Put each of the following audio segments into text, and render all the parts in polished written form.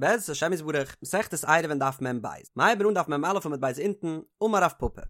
בעזרת השם יתברך, מסכת עירובין דף מ"ב, מ'הייבן אן דף מ"א עמוד ב' אונטן, אמר רב פפא.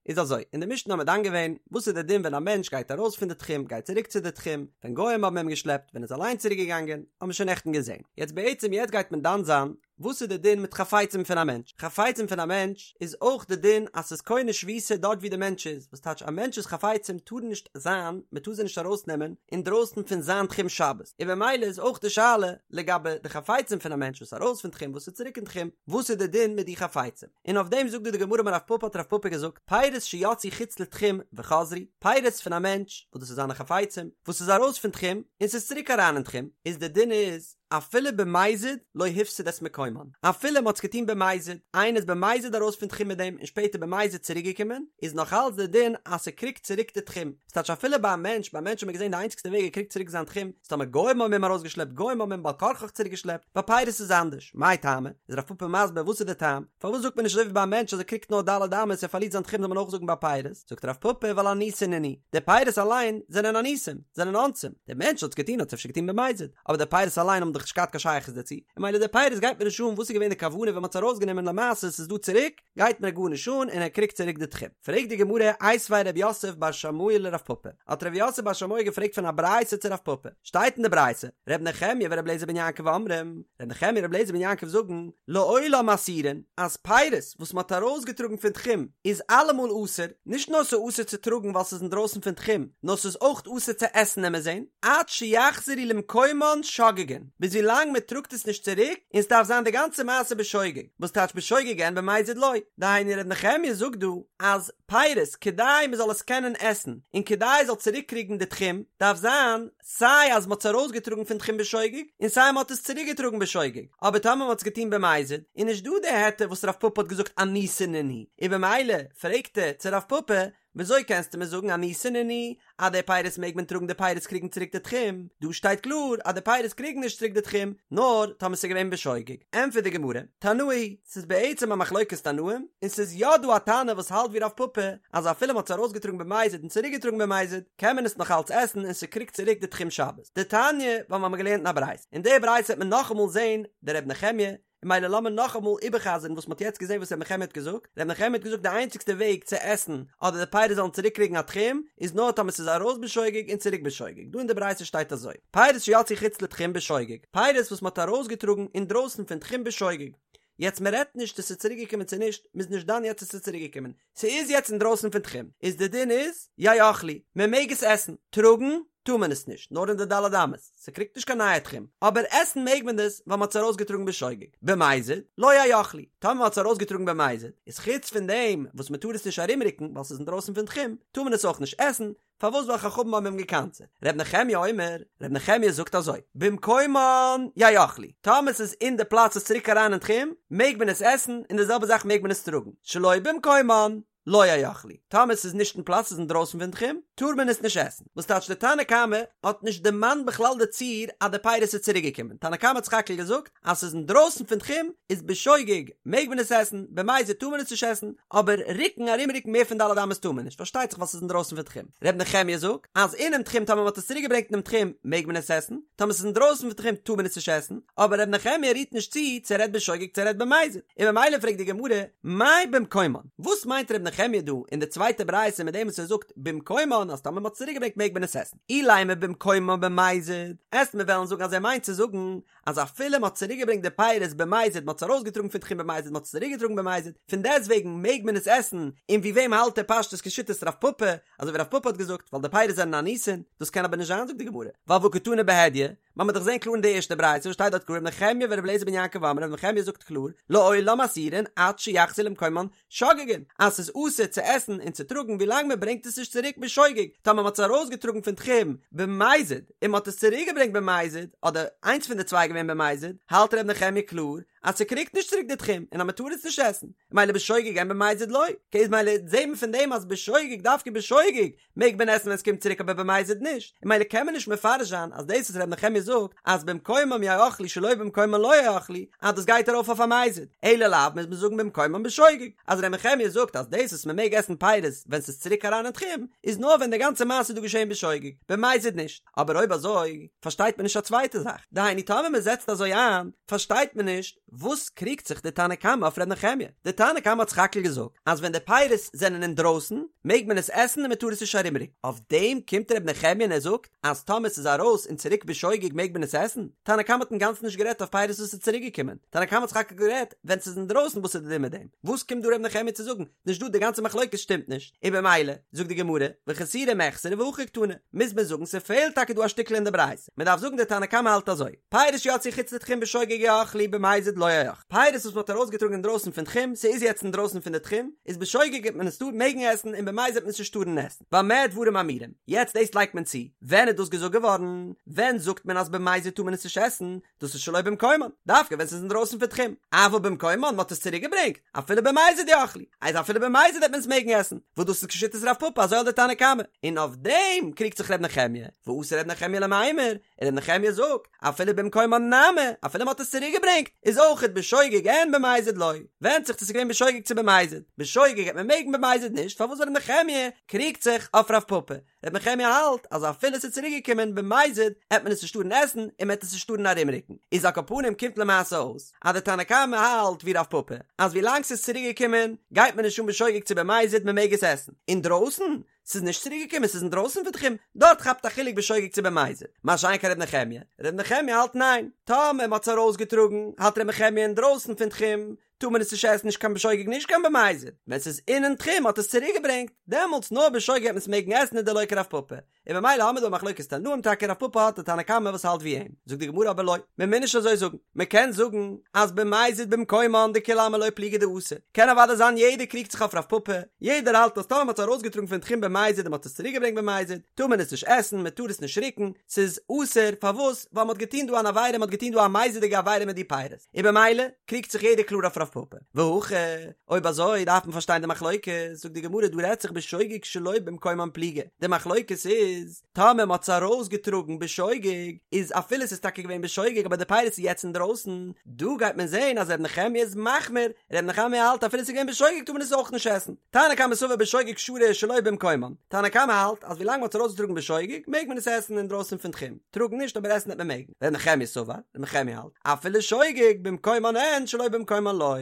איז אזוי, אין די משנה האבן מיר דן געווען, וואס איז די דין ווען א מענטש גייט ארויס פון די תחום, גייט צוריק צו די תחום, ווען גוים האבן אים געשלעפט, ווען ער איז אליין צוריק געגאנגען, האבן מיר שוין נעכטן געזען. יעצט בעצם יעצט גייט מען דן זיין, וואס איז די דין מיט חפצים פון א מענטש? חפצים פון א מענטש איז אויך די דין אז ס'איז קונה שביתה דארט ווי די מענטש איז, וואס טייטש א מענטש'ס חפצים טארן נישט זיין, מ'טאר זיי נישט ארויסנעמען אינדרויסן פון זיין תחום שבת, און במילא איז אויך די שאלה לגבי די חפצים פון א מענטש וואס איז ארויס פון תחום וואס איז צוריק אין תחום, וואס איז די דין מיט די חפצים? און אויף דעם זאגט דא די גמרא אמר רב פפא האט רב פפא געזאגט, פירות שיצאו חוץ לתחום וחזרו, פירות פון א מענטש וואס דאס איז זיינע חפצים, וואס איז ארויס פון תחום און ס'איז צוריק אריין אין תחום, איז די דין איז, אפילו במזיד לא הפסיד את מקומן, אפילו מ'האט עס געטון במזיד, איינער איז במזיד ארויס פון תחום מיט דעם און שפעטער במזיד צוריק געקומען, איז נאך אלץ די דין אז ס'קריגט צוריק די תחום, ס'טייטש אפילו ביי א מענטש, ביי א מענטש האט מען געזען די איינציגסטע וועג ער קריגט צוריק זיין תחום, איז טאמער גוים האבן אים ארויסגעשלעפט, גוים האבן אים בעל כרחך צוריק געשלעפט, ביי פירות איז אנדערש, מאי טעמא? איז רב פפא מסביר וואס איז די טעם, פארוואס זאגט מען נישט אזוי ווי ביי א מענטש אז ער קריגט נאר ד' אמות ער פארלירט זיין תחום זאל מען אויך זאגן ביי פירות, זאגט רב פפא ווייל אנוסין נינהו, די פירות אליין זענען אנוסים, זענען אונסים, דער מענטש האט עס געטון האט עס אפשר געטון במזיד, אבער די פירות אליין האבן דאך נישט געהאט קיין שייכות דערצו, און ממילא די פירות גייט מיר נישט אן וואס איז געווען די כוונה ווען מען האט עס ארויסגענומען למעשה עס איז דא צוריק, גייט מיר גארנישט אן און ער קריגט צוריק די תחום. פרעגט די גמרא, איתיביה רב יוסף בר שמואל לרב פפא, האט רב יוסף בר שמואל געפרעגט פון א ברייתא צו רב פפא, שטייט אין די ברייתא, ר' נחמיה ור' אליעזר בן יעקב אומרים, ר' נחמיה און ר' אליעזר בן יעקב זאגן, לעולם אסורין, אז פירות וואס מען האט ארויסגעטראגן פון תחום איז אלעמאל אסור, נישט נאר ס'איז אסור צו טראגן ווייל ס'איז אינדרויסן פון תחום, נאר ס'איז אויך אסור צו עסן עמיר זען, עד שיחזרו למקומן שוגגין, ביז ווילאנג מען טראגט עס נישט צוריק, און ס'דארף זיין די גאנצע מעשה בשוגג, וואס טייטש בשוגג אין במזיד לא, דהיינו ר' נחמיה זאגט דא אז פירות כדי מען זאל עס קענען עסן, און כדי עס זאל צוריק קריגן די תחום, דארף זיין סיי אז מען האט עס ארויסגעטראגן פון תחום בשוגג, און סיי מען האט עס צוריק געטראגן בשוגג, אבער טאמער מען האט עס געטון במזיד, איז נישט דא די היתר וואס רב פפא האט געזאגט אנוסין נינהו, און במילא פרעגט ער צו רב פפא, וויאזוי קענסטו מיר זאגן אנוסין נינהו אז די פירות מעג מען טראגן די פירות קריגן צוריק די תחום, דא שטייט קלאר אז די פירות קריגן נישט צוריק די תחום, נאר טאמער ס'איז געווען בשוגג. ענטפערט די גמרא, תנאי היא, ס'איז בעצם א מחלוקת תנאים, און ס'איז יא דא א תנא וואס האלט ווי רב פפא, אז אפילו מ'האט עס ארויסגעטראגן במזיד און צוריקגעטראגן במזיד, קען מען עס נאך אלץ עסן און ס'קריגט צוריק די תחום שבת. דתניא, ווייל מ'האמיר געלערנט אין א ברייתא. אין די ברייתא וועט מען נאכאמאל זען די ר' נחמיה, און ממילא לאמיר נאכאמאל איבערחזר'ן וואס מ'האט יעצט געזען וואס ר' נחמיה האט געזאגט, ר' נחמיה האט געזאגט די איינציגסטע וועג צו עסן אדער די פירות זאלן צוריק קריגן א תחום איז נאר טאמער ס'איז ארויס בשוגג און צוריק בשוגג, דא אין די ברייתא שטייט אזוי, פירות שיצאו חוץ לתחום בשוגג, פירות וואס מ'האט ארויסגעטראגן אינדרויסן פון תחום בשוגג, יעצט מ'רעדט נישט צו ס'איז צוריק געקומען צו נישט, מ'איז נישט דן יעצט צו ס'איז צוריק געקומען, ס'איז יעצט אינדרויסן פון תחום, איז די דין איז, יאכלו, מ'מעג עס עסן, טראגן טאר מען עס נישט, נאר אין די ד' אמות, ס'קריגט נישט קיין נייע תחום, אבער עסן מעג מען דאס ווייל מ'האט עס ארויסגעטראגן בשוגג, במזיד, לא יאכלו, טאמער מ'האט עס ארויסגעטראגן במזיד, איז חוץ פון דעם וואס מ'טאר עס נישט ארומרוקן ווייל ס'איז אינדרויסן פון תחום, טאר מען עס אויך נישט עסן, פארוואס ווייל חכמים האבן אים געקנס'עט? ר' נחמיה אומר, ר' נחמיה זאגט אזוי, במקומן יאכלו, טאמער ס'איז אין די פלאץ ס'איז צוריק אריין אין תחום, מעג מען עס עסן, און די זעלבע זאך מעג מען עס טראגן, שלא במקומן, לא יאכלו, טאמער ס'איז נישט אין פלאץ ס'איז אינדרויסן פון תחום, טאר מען עס נישט עסן. וואס טייטש די תנא קמא האט נישט דערמאנט בכלל די ציור אז די פירות איז צוריק געקומען, תנא קמא האט סך הכל געזאגט אז ס'איז אינדרויסן פון תחום איז בשוגג מעג מען עס עסן, במזיד טאר מען עס נישט עסן, אבער רוקן ארום רוקן מער פון ד' אמות טאר מען נישט, פארשטייט זיך ווייל ס'איז אינדרויסן פון תחום. ר' נחמיה זאגט אז אינעם תחום טאמער מ'האט עס צוריק געברענגט אינעם תחום מעג מען עס עסן, טאמער ס'איז אינדרויסן פון תחום טאר מען עס נישט עסן, אבער ר' נחמיה רירט נישט צו צו ער רעדט בשוגג צו ער רעדט במזיד, און ממילא פרעגט די גמרא, מאי במקומן? וואס מיינט ר' נחמיה דא אין די צווייטע ברייתא מיט דעם וואס ער זאגט במקומן אז טאמער מ'האט עס צוריק געברענגט מעג מען עס עסן? אילימא במקומן במזיד, עסט מיר וועלן זאגן אז ער מיינט צו זאגן אז אפילו מ'האט צוריק געברענגט די פירות במזיד מ'האט עס ארויסגעטראגן פון תחום במזיד מ'האט עס צוריק געטראגן במזיד פון דעסטוועגן מעג מען עס עסן, און ווי וועם האלט ער פשטות כשיטת רב פפא אזוי ווי רב פפא האט געזאגט ווייל די פירות זענען אנוסין, דאס קען אבער נישט זיין זאגט די גמרא ווייל והא קתני בהדיא, מ'האמיר דאך געזען קלאר אין די ערשטע ברייתא וואס שטייט דארט קלאר ר' נחמיה ור' אליעזר בן יעקב אומרים ר' נחמיה זאגט קלאר לעולם אסורין עד שיחזרו למקומן שוגגין אז ס'איז אסור צו עסן און צו טראגן ווילאנג מ'ברענגט עס נישט צוריק בשוגג טאמער מ'האט עס ארויסגעטראגן פון תחום במזיד און מ'האט עס צוריקגעברענגט במזיד אדער איינס פון די צוויי געווען במזיד האלט ר' נחמיה קלאר. אז ס'קריגט נישט צוריק די תחום און אז מ'טאר עס נישט עסן, מילא בשוגג אין במזיד לא, אקעי איז מילא זעהט מען פון דעם אז בשוגג דווקא בשוגג מעג מען עסן ווען ס'קומט צוריק אבער במזיד נישט, און מילא קען מען נישט מפרש זיין אז דאס וואס ר' נחמיה זאגט אז במקומם יאכלו שלא במקומם לא יאכלו אז דאס גייט ארויף אויף א מזיד, אלא לאו מוז מען זאגן במקומם בשוגג, אז ר' נחמיה זאגט אז דאס וואס מ'מעג עסן פירות ווען ס'איז צוריק אריין אין תחום איז נאר ווען די גאנצע מעשה איז דא געשעהן בשוגג, במזיד נישט. אבער אויב אזוי פארשטייט מען נישט א צווייטע זאך, דהיינו טאמער מען זעצט אזוי איין פארשטייט מען נישט וואס קריגט זיך די תנא קמא אויף ר' נחמיה, די תנא קמא האט סך הכל געזאגט אז ווען די פירות זענען אינדרויסן מעג מען עס עסן און מען טאר עס נישט ארומרוקן, אויף דעם קומט ר' נחמיה און ער זאגט אז טאמער ס'איז ארויס און צוריק בשוגג מעג מען עס עסן, תנא קמא האט אינגאנצן נישט גערעדט אויף פירות וואס איז צוריק געקומען, תנא קמא האט סך הכל גערעדט ווען ס'איז אינדרויסן וואס איז די דין מיט דעם, וואס קומט דא ר' נחמיה צו זאגן נישט דא די גאנצע מחלוקת שטימט נישט, און במילא, זאגט די גמרא, וחסורי מחסרא והכי קתני, מוז מען זאגן ס'פעלט טאקע דא א שטיקל אין די ברייתא, מען דארף זאגן די תנא קמא האלט אזוי, פירות שיצאו חוץ לתחום בשוגג יאכלו במזיד לא יאכלו, פירות וואס מען האט ארויסגעטראגן אינדרויסן פון תחום, ס'איז יעצט אינדרויסן פון די תחום, איז בשוגג וועט מען עס טאר מעגן עסן און במזיד וועט מען עס נישט טארן עסן, במה דברים אמורים, יעצט דאס לייגט מען צו, ווען איז דאס געזאגט געווארן? ווען זאגט מען אז במזיד טאר מען עס נישט עסן? דאס איז שלא במקומן, דווקא ווען ס'איז אינדרויסן פון תחום, אבל במקומן, מ'האט עס צוריק געברענגט, אפילו במזיד יאכלו, אז אפילו במזיד וועט מען עס מעגן עסן, וואס דאס איז כשיטת רב פפא אזוי האלט די תנא קמא, און אויף דעם קריגט זיך ר' נחמיה, ואתא ר' נחמיה למימר, און ר' נחמיה זאגט, אפילו במקומן נמי, אפילו מ'האט עס צוריק געברענגט, איז אויכעט בשוגג אין במזיד לא, ווענדט זיך צו ס'איז געווען בשוגג צו במזיד, בשוגג העט מען מעגן במזיד נישט, פארוואס ווייל ר' נחמיה קריגט זיך אויף רב פפא, ר' נחמיה האלט אז אפילו ס'איז צוריק געקומען במזיד העט מען עס נישט טארן עסן און מ'העט עס נישט טארן ארומרוקן, איז על כל פנים קומט למעשה אויס אז די תנא קמא האלט ווי רב פפא אז ווי לאנג ס'איז צוריק געקומען גייט מען נישט אן בשוגג צו במזיד מ'מעג עס עסן, אינדרויסן ס'איז נישט צוריק געקומען ס'איז אינדרויסן פון תחום דארט כאפט א חילוק בשוגג צו במזיד, מה שאין כן ר' נחמיה, ר' נחמיה האלט ניין, טאמער מ'האט עס ארויסגעטראגן האלט ר' נחמיה אינדרויסן פון תחום טאר מען עס נישט עסן נישט קיין בשוגג נישט קיין במזיד, ווען ס'איז אינעם תחום האט עס צוריק געברענגט, דעמאלטס נאר בשוגג העט מען עס מעגן עסן און דלא כרב פפא, און במילא האמיר דא א מחלוקת תנאים טאקע רב פפא האט א תנא קמא וואס האלט ווי אים, זאגט די גמרא אבער לא, מען מוז נישט אזוי זאגן, מען קען זאגן אז במזיד במקומן דכולי עלמא לא פליגי דאסור, קען אוודאי זיין יעדער קריגט זיך אויף רב פפא, יעדער האלט אז טאמער מען האט עס ארויסגעטראגן פון תחום במזיד און מען האט עס צוריק געברענגט במזיד, טאר מען עס נישט עסן, מען טאר עס נישט רוקן, ס'איז אסור, פארוואס? ווייל מען האט געטון דא אן עבירה, מען האט געטון דא א מזיד'יגע עבירה מיט די פירות. און במילא קריגט זיך יעדער קלאר אויף רב פפא. והכא, אויב אזוי דארף מען פארשטיין די מחלוקת, זאגט די גמרא דא רעדט זיך בשוגג שלא במקומן פליגי, די מחלוקת איז, טאמער מען האט עס ארויסגעטראגן בשוגג, איז אפילו עס איז טאקע געווען בשוגג אבער די פירות איז יעצט אינדרויסן, דא גייט מען זען אז ר' נחמיה איז מחמיר, ר' נחמיה האלט אפילו עס איז געווען בשוגג טאר מען עס אויך נישט עסן. תנא קמא סבר בשוגג שרי שלא במקומן, תנא קמא האלט אז ווילאנג מען האט עס ארויסגעטראגן בשוגג מעג מען עס עסן אינדרויסן פון תחום. טראגן נישט אבער עסן העט מען מעגן. ר' נחמיה סבר, ר' נחמיה האלט, אפילו שוגג במקומן אין שלא במקומן לא,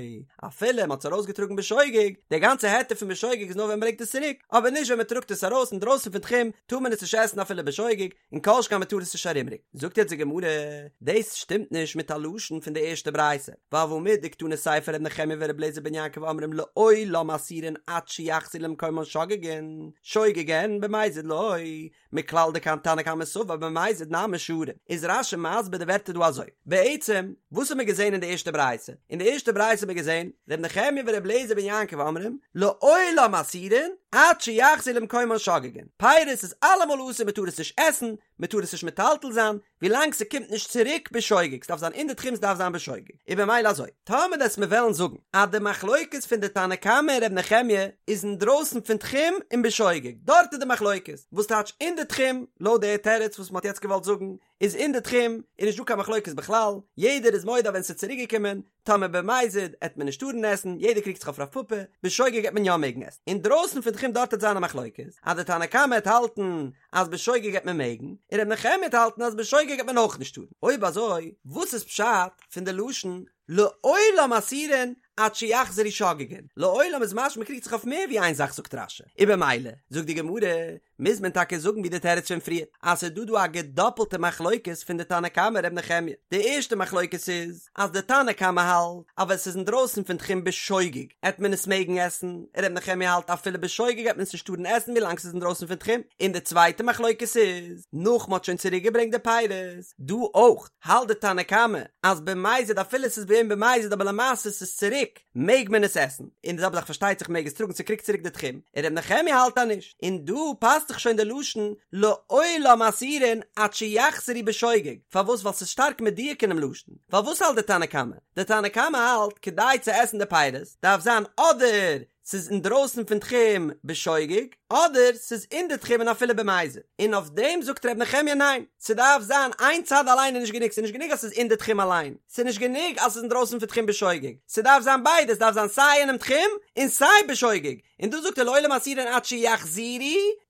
אפילו מען האט עס ארויסגעטראגן בשוגג, די גאנצע היתר פון בשוגג איז נאר ווען מען ברענגט עס צוריק, אבער נישט ווען מען טראגט עס ארויס אינדרויסן פון תחום, טאר מען עס נישט עסן אפילו בשוגג, און כל שכן מען טאר עס נישט ארומרוקן. זאגט יעצט די גמרא, דאס שטימט נישט מיט א לשון פון די ערשטע ברייתא, ווייל והא מדקתני סיפא ר' נחמיה ור' אליעזר בן יעקב אומרים לעולם אסורין עד שיחזרו למקומן שוגגין, שוגג אין במזיד לא, מכלל דתנא קמא סבר במזיד נמי שרי, איז רש"י מסביר די ווערטער דא אזוי, בעצם וואס האט מען געזען אין די ערשטע ברייתא? אין די ערשטע ברייתא האט מען געזען, ר' נחמיה ור' אליעזר בן יעקב אומרים, לעולם אסורין עד שיחזרו למקומן שוגגין, פירות איז אלעמאל אסור מען טאר עס נישט עסן, מען טאר עס נישט מטלטל זיין, ווילאנג ס'קומט נישט צוריק בשוגג, ס'דארף זיין אין די תחום ס'דארף זיין בשוגג, איז במילא אזוי, טאמער דאס מיר וועלן זאגן אז די מחלוקת פון די תנא קמא און ר' נחמיה איז אינדרויסן פון תחום און בשוגג, דארט איז די מחלוקת, וואס טייטש אין די תחום, לויט די תירוץ וואס מ'האט יעצט געוואלט זאגן, איז אין די תחום איז נישט דא קיין מחלוקת בכלל, יעדער איז מודה אז ווען ס'איז צוריק געקומען, טאמער במזיד עט מען נישט טארן עסן, יעדער קריגט זיך אויף רב פפא, בשוגג עט מען יא מעגן עסן. אינדרויסן פון תחום דארט עט זיין א מחלוקת, אז די תנא קמא עט האלטן אז בשוגג עט מען מעגן, און ר' נחמיה עט האלטן אז בשוגג עט מען אויך נישט טארן. אויב אזוי, וואס איז פשט פון די לשון לעולם אסורין עד שיחזרו שוגגין? לעולם איז משמע מ'קריגט זיך אויף מער ווי איין זאך זאגט רש"י. און במילא, זאגט די גמרא, מוז מען טאקע זאגן ווי די תירוץ פון פריער, אז ס'איז דא דא א געדאפלטע מחלוקת פון די תנא קמא ר' נחמיה. די ערשטע מחלוקת איז, אז די תנא קמא האלט אז ווען ס'איז אינדרויסן פון תחום בשוגג עט מען עס מעגן עסן, און ר' נחמיה האלט אפילו בשוגג עט מען עס נישט טארן עסן ווילאנג ס'איז אינדרויסן פון תחום. און די צווייטע מחלוקת איז, נאך מ'האט שוין צוריק געברענגט די פירות, דא אויך האלט די תנא קמא אז במזיד אפילו ס'איז געווען במזיד אבער למעשה ס'איז צוריק מעג מען עס עסן, און די זעלבע זאך פארשטייט זיך מעג עס טראגן ס'קריגט צוריק די תחום, און ר' נחמיה האלט אז נישט, און דא פאסט פאסט זיך שוין די לשון לעולם אסורין עד שיחזרו בשוגג, פארוואס ווייל ס'איז שטארק מדויק אינעם לשון, ווייל וואס האלט די תנא קמא? די תנא קמא האלט כדי צו עסן די פירות דארף זיין אדער ס'איז אינדרויסן פון תחום בשוגג, אדער ס'איז אין די תחום און אפילו במזיד, און אויף דעם זאגט ר' נחמיה ניין, ס'דארף זיין איין צד אליין איז נישט גענוג, ס'איז נישט גענוג אז ס'איז אין די תחום אליין, ס'איז נישט גענוג אז ס'איז אינדרויסן פון תחום בשוגג, ס'דארף זיין ביידע, ס'דארף זיין סיי אינעם תחום און סיי בשוגג, און דא זאגט ער לעולם אסורין עד שיחזרו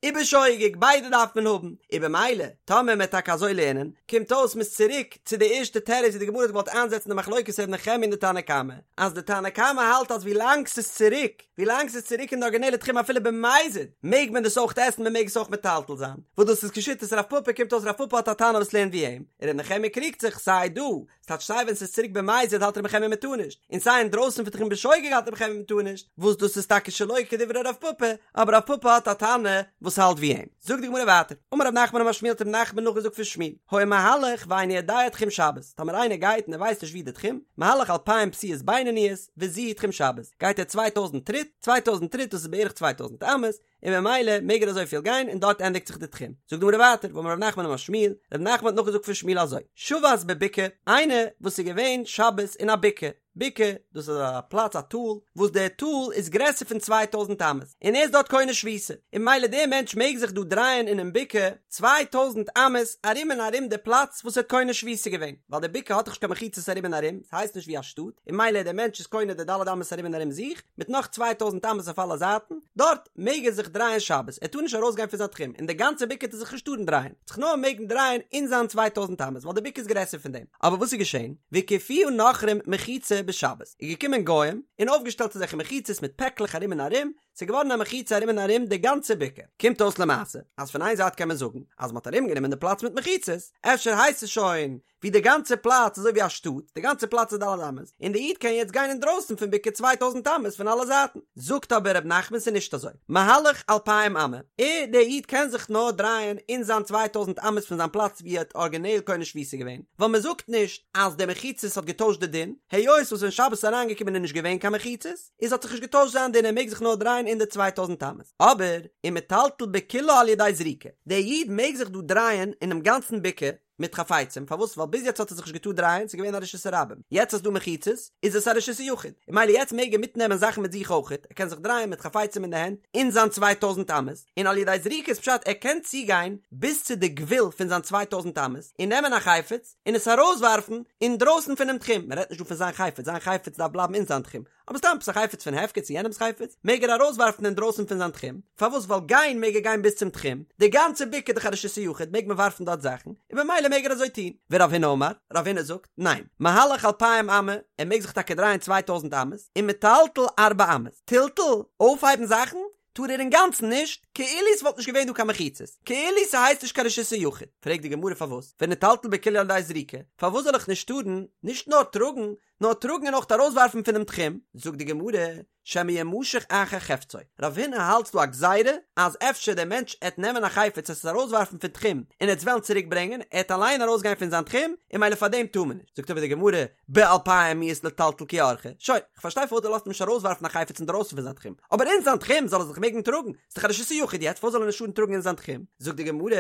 ובשוגג, ביידע דארף מען האבן, און במילא טאמער מ'עט טאקע אזוי לערנען, קומט אויס מ'איז צוריק צו די ערשטע תירוץ ווי די גמרא האט געוואלט איינזעצן די מחלוקת ר' נחמיה און די תנא קמא, אז די תנא קמא האלט אז ווילאנג ס'איז צוריק, ווילאנג ס'איז צוריק אין די ארגינעלע תחום אפילו במזיד, מעג מען דאס אויך עסן, מ'מעג עס אויך מטלטל זיין, וואס דאס איז כשיטת רב פפא, קומט אויס רב פפא האט א תנא וואס לערנט ווי אים, און ר' נחמיה קריגט זיך, סיי דא, ס'טייטש סיי ווען ס'איז צוריק במזיד האלט ר' נחמיה מ'טאר נישט, און סיי אינדרויסן פון תחום בשוגג האלט ר' נחמיה מ'טאר נישט, וואס דאס איז טאקע שלא כדברי רב פפא, אבער רב פפא האט א תנא וואס האלט ווי אים. זאגט די גמרא ווייטער, אמר רב נחמן אמר שמואל האט רב נחמן נאכגעזאגט פון שמואל, היה מהלך ואינו יודע תחום שבת, טאמער איינער גייט און ער ווייסט נישט ווי די תחום, מהלך אלפיים פסיעות בינוניות, וזו היא תחום שבת, גייט ער צוויי טויזנט טריט, צוויי טויזנט טריט דאס איז בערך צוויי טויזנט אמות, און ממילא מעג ער אזויפיל גיין און דארט ענדיגט זיך די תחום. זאגט די גמרא ווייטער, ואמר רב נחמן אמר שמואל, רב נחמן האט נאכגעזאגט פון שמואל אזוי, שבת בבקעה, איינער וואס איז געווען שבת אין א בקעה, בקעה, דאס איז א פלאץ א טאל, וואס דער טאל איז גרעסער פון צוויי טויזנט אמות, און ער איז דארט קונה שביתה, און ממילא דער מענטש מעג זיך דא דרייען אינעם בקעה צוויי טויזנט אמות ארום און ארום די פלאץ וואס ער האט קונה שביתה געווען, ווייל די בקעה האט דאך נישט קיין מחיצות ארום און ארום, ס'הייסט נישט ווי א שטאט, און ממילא דער מענטש איז קונה די ד' אמות ארום און ארום זיך, מיט נאך צוויי טויזנט אמות אויף אלע זייטן, דארט מעג ער זיך דרייען שבת, ער טאר נישט ארויסגיין פון זיין תחום, אין די גאנצע בקעה טאר ער זיך נישט טארן דרייען, זיך נאר מעגן דרייען אין זיין צוויי טויזנט אמות, ווייל די בקעה איז גרעסער פון דעם. אבער וואס איז געשען? והקיפוה נכרים מחיצה בשבת, איז געקומען גוים און אויפגעשטעלט אזעלכע מחיצות מיט פעקלעך ארום און ארום, ס'איז געווארן א מחיצה ארום און ארום די גאנצע בקעה. קומט אויס למעשה, אז פון איין זייט קען מען זאגן אז מ'האט ארומגענומען די פלאץ מיט מחיצות, אפשר הייסט עס שוין ווי די גאנצע פלאץ אזוי ווי א שטאט, די גאנצע פלאץ איז ד' אמות, און די איד קען יעצט גיין אינדרויסן פון בקעה צוויי טויזנט אמות פון אלע זייטן. זאגט אבער ר' נחמן ס'איז נישט אזוי, מהלך אלפיים אמה, ער דער איד קען זיך נאר דרייען אין זיין צוויי טויזנט אמות פון זיין פלאץ ווי ער האט ארגינעל קונה שביתה געווען, ווייל מען זאגט נישט אז די מחיצות האט געטוישט די דין, היות וואס ווען שבת איז אריינגעקומען איז נישט געווען קיין מחיצות, איז האט זיך נישט געטוישט זיין דין ער מעג זיך נאר דרייען אין די צוויי טויזנט אמות, אבער ומטלטל בכולה על ידי זריקה, דער איד מעג זיך דא דרייען אינעם גאנצן בקעה, מיט חפצים, פארוואס? ווייל ביז יעצט האט ער זיך נישט געטארט דרייען, ס'איז געווען א רשות הרבים, יעצט אז ס'דא מחיצות, איז עס א רשות היחיד, און ממילא יעצט מעג ער מיטנעמען זאכן מיט זיך אויכעט, ער קען זיך דרייען מיט חפצים אין די הענט, אין זיין צוויי טויזנט אמות, און על ידי זריקה איז פשט ער קען צוגיין ביז צו די גבול פון זיין צוויי טויזנט אמות, און נעמען א חפץ, און עס ארויסווארפן אינדרויסן פונעם תחום, מען רעדט נישט דא פון זיין חפץ, זיין חפץ דארף בלייבן אין זיין תחום, אבער סתם עפעס א חפץ פון הפקר צו יענעמס חפץ, מעג ער ארויסווארפן אינדרויסן פון זיין תחום, פארוואס ווייל גיין מעג ער גיין ביז צום תחום, די גאנצע בקעה איז דאך א רשות היחיד מעג מען ווארפן דארט זאכן, און במילא מעג ער אזוי טון, ורב הונא אמר, רב הונא זאגט, ניין, מהלך אלפיים אמה, ער מעג זיך טאקע דרייען צוויי טויזנט אמות, ומטלטל ארבע אמות, טלטול, אויפהייבן זאכן, טאר ער אינגאנצן נישט, כאילו ס'וואלט נישט געווען דא קיין מחיצות, כאילו ס'הייסט נישט קיין רשות היחיד, פרעגט די גמרא פארוואס, וניטלטל בכולה על ידי זריקה, פארוואס זאל איך נישט טארן, נישט נאר טראגן, נאר טראגן און אויך ארויסווארפן פונעם תחום, זאגט די גמרא, שמא ימשך אחר חפצו, רב הונא האלט ס'דא א גזירה אז אפשר דער מענטש עט נעמען א חפץ עס ארויסווארפן פון תחום און עט עס וועלן צוריק ברענגען, ער עט אליין ארויסגיין פון זיין תחום, און ממילא פאר דעם טאר מען נישט, זאגט אבער די גמרא, באלפיים מיהת לטלטל כי אורחיה, שוין, כ'פארשטיי פארוואס דו לאזט אים נישט ארויסווארפן א חפץ אינדרויסן פון זיין תחום, אבער אין זיין תחום זאל ער זיך מעגן טראגן, ס'דאך א רשות היחיד יעצט, פארוואס זאל ער נישט טארן טראגן אין זיין תחום? זאגט די גמרא,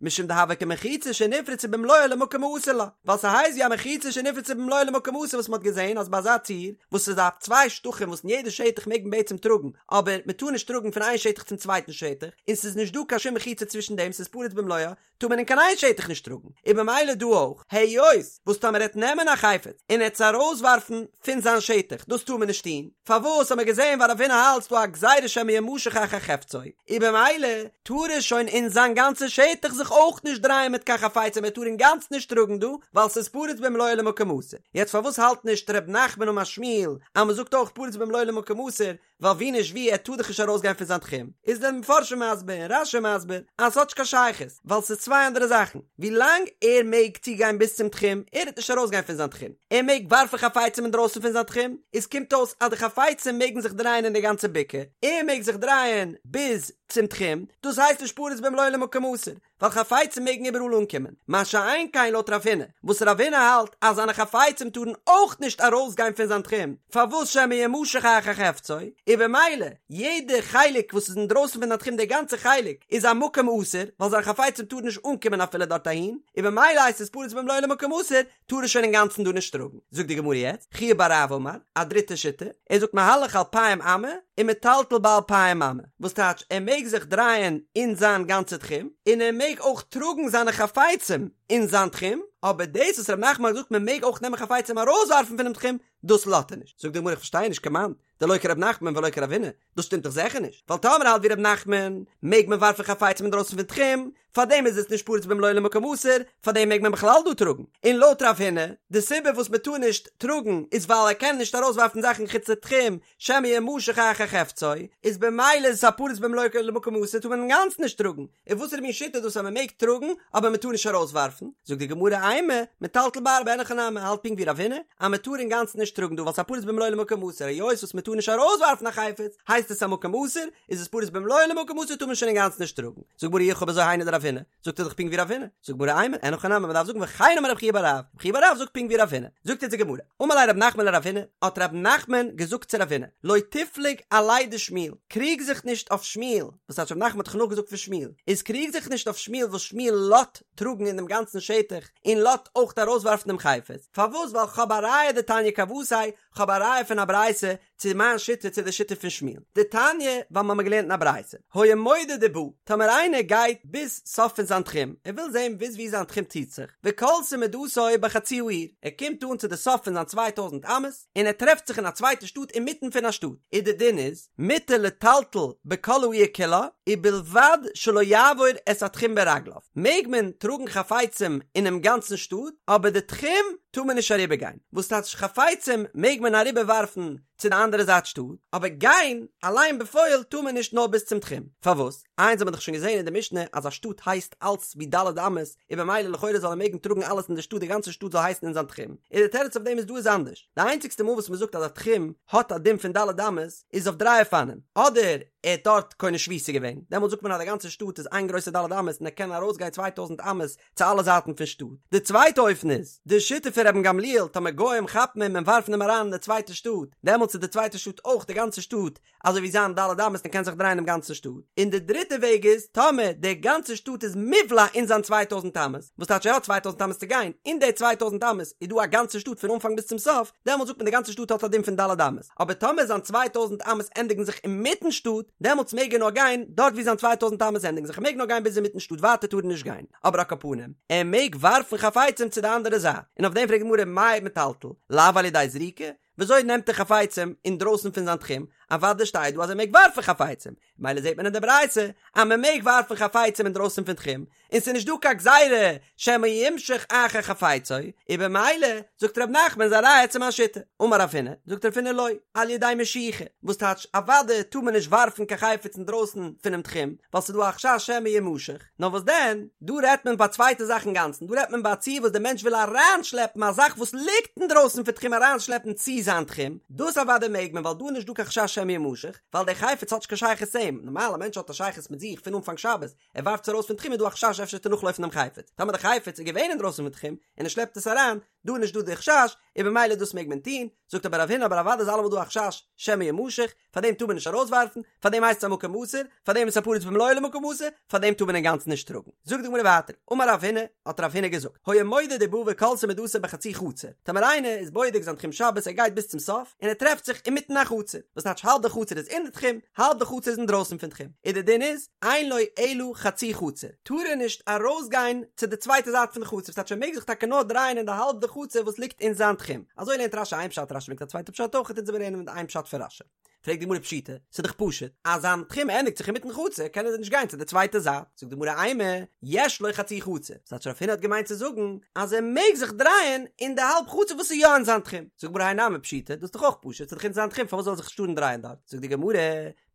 משום דהוה כמחיצה שנפרצה במלואה למקום האסור לה, ווייל ס'הייסט ווי א מחיצה שנפרצה במלואה למקום האסור וואס מ'האט געזען אז ביי אזא ציור וואס איז א צוויי שטחים וואס אין יעדע שטח מעג מען בעצם טראגן אבער מ'טאר נישט טראגן פון איין שטח צום צווייטן שטח און ס'איז נישט דא קיין שום מחיצה צווישן דעם ס'איז פרוץ במלואה טאר מען אין קיין איין שטח נישט טראגן און במילא דא אויך היות וואס טאמער ער וועט נעמען א חפץ און ער וועט עס ארויסווארפן פון זיין שטח דאס טאר מען נישט טון פארוואס האט מען געזען ווייל רב הונא האלט ס'דא א גזירה שמא ימשך אחר חפצו און במילא טאר ער שוין אין זיין גאנצע שטח זיך אויך נישט דרייען מיט קיין חפצים ער טאר אינגאנצן נישט טראגן דא ווייל ס'איז פרוץ במלואו למקום אסור יעצט פארוואס האלט נישט ר' נחמן אמר שמואל אז מ'זאגט אויך פרוץ במלואו למקום אסור ווייל ווי נישט ווי ער טאר דאך נישט ארויסגיין פון זיין תחום איז די מפרשים מסביר און רש"י מסביר אז ס'האט נישט קיין שייכות ווייל ס'איז צוויי אנדערע זאכן ווי לאנג ער מעג צוגיין ביז צום תחום ער וועט נישט ארויסגיין פון זיין תחום ער מעג ווארפן חפצים אינדרויסן פון זיין תחום איז קומט אויס אז די חפצים מעגן זיך דרייען אין די גאנצע בקעה ער מעג זיך דרייען ביז צום תחום דאס הייסט נישט פרוץ במלואו למקום אסור. ווייל חפצים מעגן איבעראל אנקומען, מה שאין כן לויט רב הונא, וואס רב הונא האלט אז זיינע חפצים טארן אויך נישט ארויסגיין פון זיין תחום, פארוואס שמא ימשך אחר חפצו, און במילא יעדע חלק וואס איז אינדרויסן פון זיין תחום די גאנצע חלק איז א מקום אסור, ווייל זיינע חפצים טארן נישט אנקומען אפילו דארט אהין, און במילא הייסט עס פרוץ במלואו למקום אסור, טאר ער שוין אינגאנצן דא נישט טראגן. זאגט די גמרא יעצט, חייא בר רב אמר, א דריטע שיטה, ער זאגט מהלך אלפיים אמה ומטלטל באלפיים אמה, וואס טייטש ער מעג זיך דרייען אין זיין גאנצע תחום, און ער מעג אויך טראגן זיינע חפצים אין זיין תחום, אבער דאס וואס ר' נחמן האט געזאגט מען מעג אויך נעמען חפצים ארויסווארפן פונעם תחום, דאס לאזט ער נישט. זאגט די גמרא איך פארשטיי נישט כמאן דלא כר' נחמן ולא כרב הונא, דאס שטימט דאך זיכער נישט, ווייל טאמער האלט ווי ר' נחמן, מעג מען ווארפן חפצים אינדרויסן פון תחום, פארדעם איז עס נישט פרוץ במלואו למקום אסור, פארדעם מעג מען בכלל דא טראגן. און לויט רב הונא, די סיבה וואס מען טאר נישט טראגן איז ווייל ער קען נישט ארויסווארפן זאכן חוץ לתחום, שמא ימשך אחר חפצו, איז במילא איז עס א פרוץ במלואו למקום אסור טאר מען אינגאנצן נישט טראגן, און וואסערע מין שיטה איז דאס אז מען מעג טראגן אבער מען טאר נישט ארויסווארפן? זאגט די גמרא אימא, מטלטל בארבע אין הכי נמי, האלט פונקט ווי רב הונא, אז מען טאר אינגאנצן נישט טראגן דא ווייל ס'איז א פרוץ במלואו למקום אסור, היות וואס מען טאר נישט ארויסווארפן א חפץ, הייסט עס א מקום אסור, איז עס פרוץ במלואו למקום אסור טאר מען שוין אינגאנצן נישט טראגן. זאגט גמרא אי הכי אויב אזוי היינו דרב הונא, זאגט ער דאך פונקט ווי רב הונא, זאגט גמרא אימא, אין הכי נמי מען דארף זאגן וכן אמר רב חייא בר רב, רב חייא בר רב זאגט פונקט ווי רב הונא, זאגט אונז די גמרא, אמר ליה רב נחמן לרב הונא, האט רב נחמן געזאגט צו רב הונא, לא תפלוג עליה דשמואל, קריג זיך נישט אויף שמואל, וואס טייטש רב נחמן האט דאך נאכגעזאגט פון שמואל, איז קריג זיך נישט אויף שמואל וואס שמואל לאט טראגן אין דעם גאנצן שטח און לאט אויך ארויסווארפן דעם חפץ, פארוואס ווייל כ'האב א ראיה דתניא כוותיה, כ'האב א ראיה פון א ברייתא צו מיין שיטה צו די שיטה פון שמואל דתניא ווייל מ'האמיר געלערנט אין א ברייתא היה מודד ובא טאמער איינער גייט ביז סוף פון זיין תחום ער וויל זען ביז ווי זיין תחום ציט זיך וכלתה מדתו בחצי העיר ער קומט אן צו די סוף פון זיין צוויי טויזנט אמות און ער טרעפט זיך אין א צווייטע שטאט אינמיטן פון א שטאט איז די דין איז מותר לטלטל בכל העיר כולה ובלבד שלא יעבור את התחום ברגליו מעג מען טראגן חפצים אינעם גאנצן שטאט אבער די תחום טאר מען נישט אריבערגיין. וואס טייטש חפצים מעג מען אריבער ווארפן צו די אנדערע זייט שטאט, אבער גיין אליין בפועל טאר מען נישט נאר ביז צום תחום, פארוואס? איינס האט מען דאך שוין געזען אין די משנה אז א שטאט הייסט אלץ ווי ד' אמות, און במילא לכאורה זאל ער מעגן טראגן אלעס אין די שטאט די גאנצע שטאט זאל הייסן אין זיין תחום, און די תירוץ אויף דעם איז דא איז אנדערש, די איינציגסטע מאל וואס מען זאגט אז א תחום האט א דין פון ד' אמות איז אויף דריי אופנים, אדער ער האט דארט קונה שביתה געווען, דעמאלט זאגט מען אז די גאנצע שטאט איז איין גרויסע ד' אמות און ער קען ארויסגיין 2000 אמות צו אלע זייטן פון שטאט. די צווייטע אופן איז, די שיטה פון רבן גמליאל, טאמער גוים כאפן אים און ווארפן אים אריין אין די צווייטע שטאט, דעמאלטס איז די צווייטע שטאט אויך די גאנצע שטאט, אזוי ווי זיין ד' אמות און קען זיך דרייען דעם גאנצן שטאט. און די דריטע וועג איז, טאמער די גאנצע שטאט איז מובלע אין זיין 2000 אמות, וואס טייטש ער האט 2000 אמות צו גיין, אין די 2000 אמות איז דא א גאנצע שטאט פון אנפאנג ביז צום סוף, דעמאלטס זאגט מען די גאנצע שטאט האט א דין פון ד' אמות. אבער טאמער זיין 2000 אמות ענדיגן זיך אינמיטן שטאט, דעמאלטס מעג ער נאר גיין דארט ווי זיין 2000 אמות ענדיגן זיך, ער מעג נאר גיין ביז אינמיטן שטאט, ווייטער טאר ער נישט גיין. אבער על כל פנים, ער מעג ווארפן חפצים צו די אנדערע זייט, און אויף דעם פרעגט די גמרא מאי מטלטל, לאו על ידי זריקה, וויאזוי נעמט ער חפצים אינדרויסן פון זיין תחום, אוודאי שטייט דא אז ער מעג ווארפן חפצים, מילא זעט מען אין די ברייתא אז מען מעג ווארפן חפצים אינדרויסן פון תחום, און ס'איז נישט דא קיין גזירה שמא ימשך אחר חפצו, און במילא זאגט ר' נחמן איז א ראיה צו מיין שיטה. אמר רב הונא, זאגט רב הונא לא, על ידי משיכה, וואס טייטש אוודאי טאר מען נישט ווארפן קיין חפץ אינדרויסן פונעם תחום, ווייל ס'איז דא א חשש שמא ימשך, נאר וואס דען, דא רעדט מען ביי א צווייטע זאך אינגאנצן, דא רעדט מען ביי א ציור וואס דער מענטש וויל אריינשלעפן א זאך וואס ליגט אינדרויסן פון תחום אריינשלעפן צו זיין תחום, דאס אוודאי מעג מען ווייל דא איז נישט דא קיין חשש שמא ימשך, ווייל דער חפץ האט נישט קיין שייכות צו אים, נארמאל א מענטש האט א שייכות מיט זיך פון אנפאנג שבת, ער ווארפט עס ארויס פון תחום איז דא א חשש אפשר וועט ער נאכלויפן דעם חפץ, טאמער דער חפץ איז געווען אינדרויסן פון תחום און ער שלעפט עס אריין, דא איז נישט דא די חשש, און במילא דאס מעג מען טון, זאגט אבער רב הונא אבער אוודאי איז אלעמאל דא א חשש שמא ימשך, פאר דעם טאר מען נישט ארויסווארפן, פאר דעם הייסט עס א מקום אסור, פאר דעם איז עס א פרוץ במלואו למקום אסור, פאר דעם טאר מען אינגאנצן נישט טראגן. זאגט די גמרא ווייטער, אמר רב הונא, האט רב הונא געזאגט, היה מודד ובא וכלתה מדתו בחצי חצר, טאמער איינער איז בודק זיין תחום שבת ער גייט ביז צום סוף, און ער טרעפט זיך אינמיטן א חצר, וואס טייטש האלב די חצר איז אין די תחום, האלב די חצר איז אינדרויסן פון תחום, און די דין איז, אין לו אלא חצי חצר, טאר ער נישט ארויסגיין צו די צווייטע זייט פון די חצר, ס'טייטש ער מעג זיך טאקע נאר דרייען אין די האלב די חצר וואס ליגט אין זיין תחום. אזוי לערנט רש"י איין פשט, רש"י ברענגט א צווייטע פשט אויך, אונז וועלן לערנען מיט איין פשט פון רש"י. פרעגט די גמרא פשיטא, ס'איז דאך פשוט, אז זיין תחום ענדיגט זיך אינמיטן חצר, קען ער נישט גיין צו די צווייטע זייט. זאגט די גמרא אימא, יש לו חצי חצר, ס'טייטש רב הונא האט געמיינט צו זאגן אז ער מעג זיך דרייען אין די האלב חצר וואס איז יא אין זיין תחום. זאגט די גמרא האי נמי פשיטא, דאס איז דאך אויך פשוט, ס'איז דאך אין זיין תחום פארוואס זאל ער זיך נישט טארן דרייען דארט? זאגט די גמרא.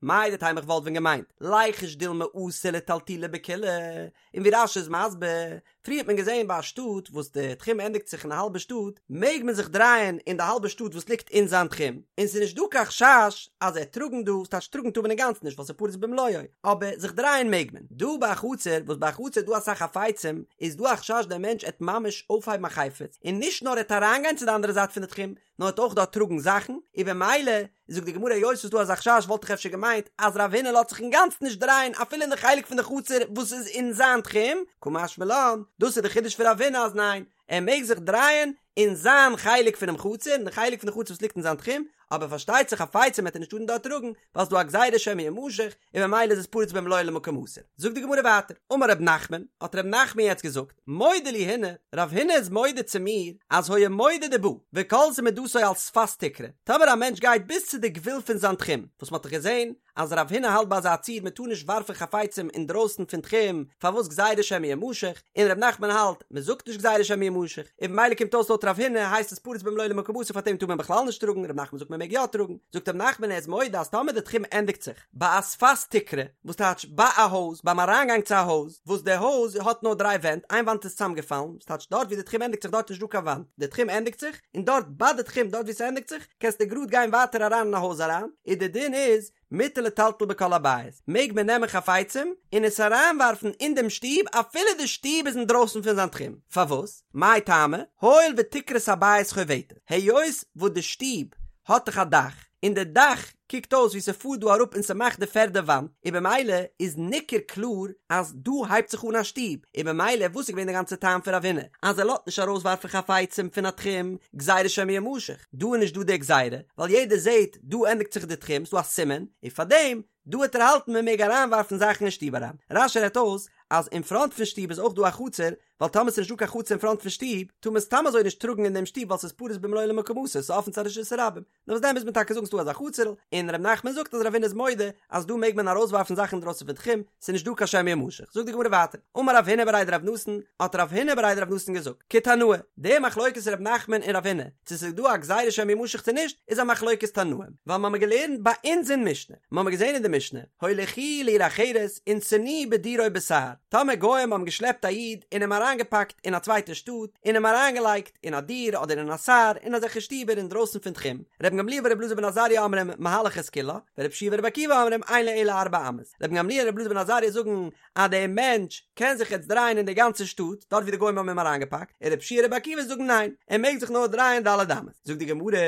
מהו דתימא איך וואלט ווען געמיינט, ליחוש דילמא אתי לטלטולי בכולה, און ווי רש"י איז מסביר, פריער האט מען געזען ביי א שטאט וואס די תחום ענדיגט זיך אין א האלבע שטאט, מעג מען זיך דרייען אין די האלבע שטאט וואס ליגט אין זיין תחום, און ס'איז נישט דא קיין חשש אז ער טראגן דא, ס'טייטש טראגן טאר מען אינגאנצן נישט ווייל ס'איז פרוץ במלואו, אבער זיך דרייען מעג מען. דא ביי א חצר, וואס ביי א חצר איז דא אסאך חפצים, איז דא א חשש דער מענטש עט ממש אויפהייבן א חפץ, און נישט נאר ער עט אריינגיין צו די אנדערע זייט פון די תחום, נאר עט אויך דארט טראגן זאכן, און במילא, זאגט די גמרא היות ס'איז דא אזא חשש וואלט איך אפשר געמיינט אז רב הונא לאזט זיך אינגאנצן נישט דרייען אפילו אין די חלק פון די חצר וואס איז אין זיין תחום, קא משמע לן, דאס איז די חידוש פון רב הונא אז ניין, ער מעג זיך דרייען אין זיין חלק פונעם חצר, אין די חלק פון די חצר וואס ליגט אין זיין תחום, אבער פארשטייט זיך חפצים וועט ער נישט טארן דארט טראגן, ווייל ס'איז דא א גזירה שמא ימשך, און ממילא איז עס פרוץ במלואו למקום אסור. זאגט די גמרא ווייטער, אמר ר' נחמן, האט ר' נחמן יעצט געזאגט, מודה לי הונא, רב הונא איז מודה צו מיר, אז היה מודד ובא, וכלתה מדתו על שפת תקרה, טאמער א מענטש גייט ביז צו די גבול פון זיין תחום, וואס מ'האט דאך געזען אז רב הונא האלט ביי אזא ציור מ'טאר נישט ווארפן חפצים אינדרויסן פון תחום, פארוואס גזירה שמא ימשך, און ר' נחמן האלט, מ'זאגט נישט גזירה שמא ימשך, און במילא קומט אויס לויט רב הונא הייסט עס פרוץ במלואו למקום אסור פארדעם טאר מען בכלל נישט טראגן, ר' נחמן זאגט מ'מעג יא טראגן, זאגט ר' נחמן ער איז מודה אז טאמער די תחום ענדיגט זיך, ביי א שפת תקרה, וואס טייטש ביי א הויז, ביים אריינגאנג צו א הויז, וואס די הויז האט נאר דריי ווענט, איין וואנט איז צוזאמגעפאלן, וואס טייטש דארט ווי די תחום ענדיגט זיך דארט איז נישט דא קיין וואנט, די תחום ענדיגט זיך, און דארט ביי די תחום דארט ווי ס'ענדיגט זיך, קענסטו גראד גיין ווייטער אריין אין א הויז אריין, און די דין איז, מותר לטלטל בכל הבית, מעג מען נעמען חפצים און עס אריינווארפן אין דעם שטוב אפילו די שטוב איז אינדרויסן פון זיין תחום, פארוואס? מאי טעמא? הואיל ותקרת הבית חובטת, היות וואס די שטוב האט דאך א דאך, און די דאך קוקט אויס ווי ס'פארט דא אראפ און ס'מאכט די פערדע וואנט, און במילא איז ניכר קלאר אז דא הייבט זיך אן א שטוב, און במילא וואס איז געווען די גאנצע טעם פון רב הונא אז ער לאזט נישט ארויסווארפן חפצים פון א תחום, גזירה שמא ימשך, דא איז נישט דא די גזירה, ווייל יעדער זעט דא ענדיגט זיך די תחום, ס'דא א סימן, און פארדעם דא וועט ער האלטן מען מעג אריינווארפן זאכן אין שטוב אריין. רש"י רעדט אויס אז אין פראנט פון שטוב איז אויך דא א חצר, ווייל טאמער ס'איז נישט דא קיין חצר אין פראנט פון שטוב, טאר מען סתם אזוי נישט טראגן אין דעם שטוב ווייל ס'איז פרוץ במלואו למקום אסור, ס'איז אפן צו א רשות הרבים. נאר וואס דען מוז מען טאקע זאגן ס'דא אזא חצר'ל, און ר' נחמן זאגט אז רב הונא איז מודה אז דא מעג מען ארויסווארפן זאכן אינדרויסן פון תחום, ס'איז נישט דא קיין שמא ימשך. זאגט די גמרא ווייטער, אמר רב הונא בריה דרב נתן, האט רב הונא בריה דרב נתן געזאגט, כתנאי, די מחלוקת ר' נחמן און רב הונא, צו ס'איז דא א גזירה שמא ימשך צו נישט, איז א מחלוקת תנאים, ווייל מ'האמיר געלערנט ביי אונז אין משנה, מ'האמיר געזען אין די משנה, הוליכוהו לעיר אחרת ונתנוהו בדיר או בסהר, טאמער גוים האבן געשלעפט א איד און אים אריינגעפאקט אין א צווייטע שטאט, און אים אריינגעלייגט אין א דיר אדער אין א סהר, אין אזעלכע שטיבער אינדרויסן פון תחום, רבן גמליאל ורבי אלעזר בן עזריה אומרים מהלך את כולה, ורבי יהושע ורבי עקיבא אומרים אין לו אלא ארבע אמות, רבן גמליאל און רבי אלעזר בן עזריה זאגן אז דער מענטש קען זיך יעצט דרייען אין די גאנצע שטאט, דארט ווי די גוים האבן אים אריינגעפאקט, און רבי יהושע און רבי עקיבא זאגן ניין, ער מעג זיך נאר דרייען ד' אמות. זאגט די גמרא,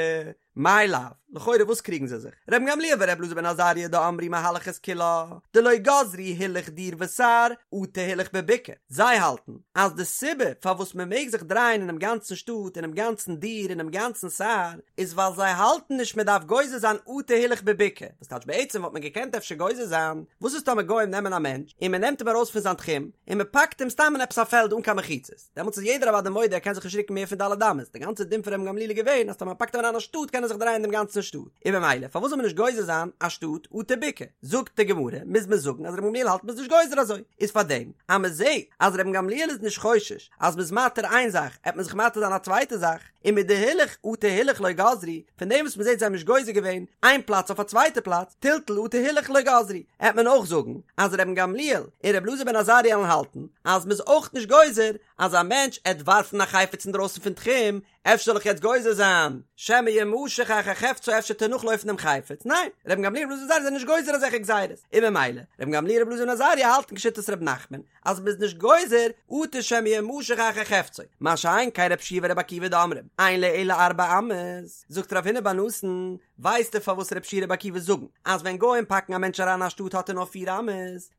מאי לאו, לכאורה וואס קריגן זיי זיך? רבן גמליאל ורבי אלעזר בן עזריה דאמרי מהלך את כולה, דלא גזרו הילוך דיר וסהר, אטו הילוך בבקעה. זיי האלטן אז די סיבה פארוואס מען מעג זיך דרייען אינעם גאנצן שטאט, אינעם גאנצן דיר, אינעם גאנצן סהר, איז ווייל זיי האלטן נישט מען דארף גוזר זיין אטו הילוך בבקעה, וואס טייטש בעצם וואלט מען געקענט אפשר גוזר זיין, וואס איז טאמער גוים נעמען א מענטש און מען נעמט אים ארויס פון זיין תחום און מען פאקט אים סתם אין עפעס א פעלד אן קיין מחיצות, דעמאלטס איז יעדער אוודאי מודה ער קען זיך נישט רוקן מער פון ד' אמות, די גאנצע דין פון רבן גמליאל איז געווען אז טאמער מען פאקט אים אריין א שטאט קען ער זיך דרייען דעם גאנצן שטאט, און במילא פארוואס זאל מען נישט גוזר זיין א שטאט אטו בקעה? זאגט די גמרא, מוז מען זאגן אז רבן גמליאל האלט מען איז נישט גוזר אזוי, איז פארדעם אז מען זעט אז רבן גמליאל איז נישט חושש אז מען איז מתיר איין זאך עט מען זיך מתיר זיין א צווייטע זאך, ומדהילוך אטו הילוך לא גזרו, פון דעם וואס מען זעט זיי האבן נישט גוזר געווען איין פלאץ אויף א צווייטע פלאץ, טלטול אטו הילוך לא גזרו, עט מען אויך זאגן אז רבן גמליאל און רבי אלעזר בן עזריה עלן האלטן אז מען איז אויך נישט גוזר אז א מענטש עט ווארפן א חפץ אינדרויסן פון תחום, אפשר זאל איך יעצט גוזר זיין שמא ימשך אחר חפצו אפשר עט ער נאכלויפן דעם חפץ, ניין, רבן גמליאל רבי אלעזר בן עזריה זענען נישט גוזר אזעלכע גזירות, און ממילא רבן גמליאל רבי אלעזר בן עזריה האלטן כשיטת ר' נחמן אז מ'איז נישט גוזר אטו שמא ימשך אחר חפצו, מה שאין כן רבי יהושע ורבי עקיבא דאמרים אין לו אלא ארבע אמות, זאגט רב הונא בר נתן, ווייסטו פארוואס רבי יהושע רבי עקיבא זאגן אז ווען גוים פאקן א מענטש אריין אין א שטאט האט ער נאר פיר אמות?